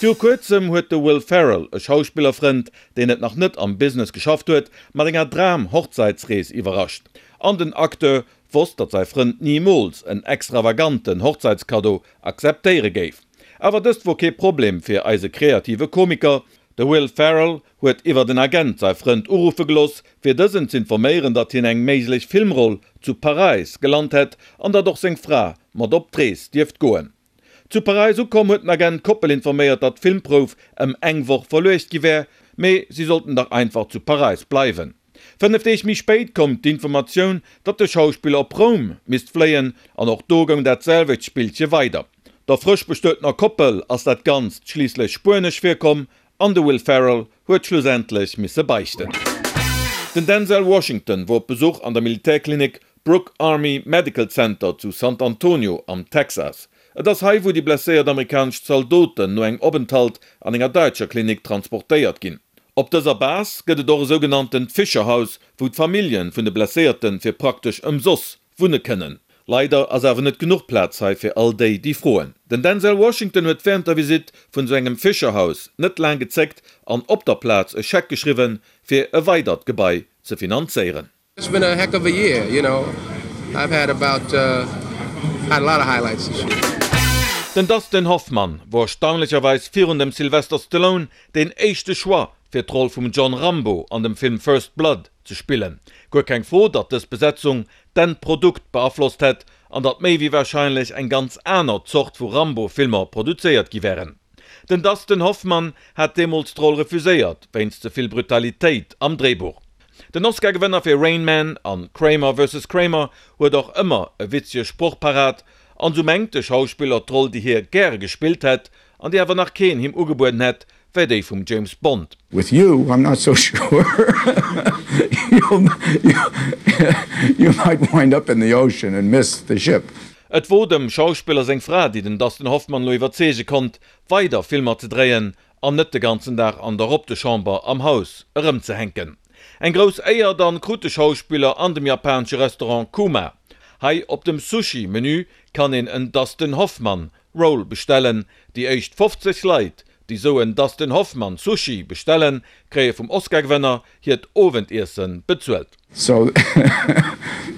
Viru kuerzem huet de Will Ferrell e Schauspillerfrënd, deen et nach net am Business geschafft huet, mat enger Dram-Hochzeitsrees iwwerrascht. An den Acteur wosst, datt säi Frënd nimools en extravaganten Hochzeitskaddo akzeptéiere géif. Awer dëst wor kee Problem fir eise kreative Komiker. De Will Ferrell huet iwwert en Agent säi Frënd uruffe geloss, fir dësen z'informéieren, datt hien eng méiglech Filmroll zu Paräis gelant hätt an datt och seng Fra mat op d'Rees dierft goen. Zu Paräis ukomm huet den Agent d'Koppel informéiert, datt d'Filmprouf ëm eng Woch verluecht gi wär, mee si sollten dach einfach zu Paräis bleiwen. 5 Deeg méi spéit koum d'Informatioun, datt de Schauspiller op Roum misst fléien an och do goung dat selwecht Spillche weider. Der frësch bestuetener Koppel ass dat Ganzt schliisslech spuenesch virkomm an de Will Ferrell huet schlussendlech misse beichten. Den Denzel Washington wor op Besuch an der Militärklinik Brooke Army Medical Center zu Sant Antonio am Texas. Et ass hei wou déi blesséiert amerikanesch Zaldoten no engem Openthalt an enger däitscher Klinik transportéiert ginn. Op dëser Base gëtt et och e sougenanntent Fischer-Haus, wou d'Familljen vun de Blesséierten fir praktesch ëmsoss wunne kënnen. Leider ass awer net genuch Plaz hei fir all déi, déi froen. Den Denzel Washington huet wärend der Visitt vun esou engem Fischer-Haus net laang gezéckt an op der Plaz e Scheck geschriwwen, fir e weidert Gebai ze finanzéieren. It's been a heck of a year, you know. I've had about uh, had a lot of highlights this year. Den Dustin Hoffman wor erstaunlecherweis virun dem Sylvester Stallone deen éischte Choix fir d'Roll vum John Rambo an dem Film First Blood ze spillen. Guer keng Fro, datt dës Besetzung d'Endprodukt beaflosst hätt an datt méi wéi warscheinlech eng ganz aner Zort vu Rambo-Filmer produzéiert gi wären. Den Dustin Hoffman hat deemools d'Roll refuséiert, wéinst ze vill Brutalitéit am Dréibuch. Den Oscar-Gewënner fir Rain Man an Kramer vs. Kramer huet och ëmmer e witzege Sproch parat, an sou mengt de Schauspiller d'Roll déi hie gäre gespillt hätt, an déi awer nach keen him ugebueden hätt, wär déi vum James Bond. With you I'm not so sure you might wind up in the ocean and miss the ship. Et wor dem Schauspiller seng Fra déi den Dustin Hoffman lo iwwerzeege konnt weider Filmer ze dréien an net de ganzen Dag an der Robdechamber am Haus erëmzehänken. Eng grouss Éier dann krut de Schauspiller an dem japanesche Restaurant Kuma. Hei op dem Sushi Menü kann een en Dustin Hoffmann Roll bestellen. Déi éischt 50 Leit déi sou en Dustin Hoffmann Sushi bestellen, kréie vum Oscar-Gewënner hiert Owendiessen bezuelt. So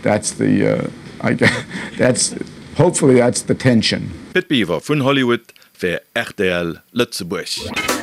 that's the, I guess, that's, hopefully that's the tension. Pit Biwer vun Hollywood fir rtl Lëtzebuerg.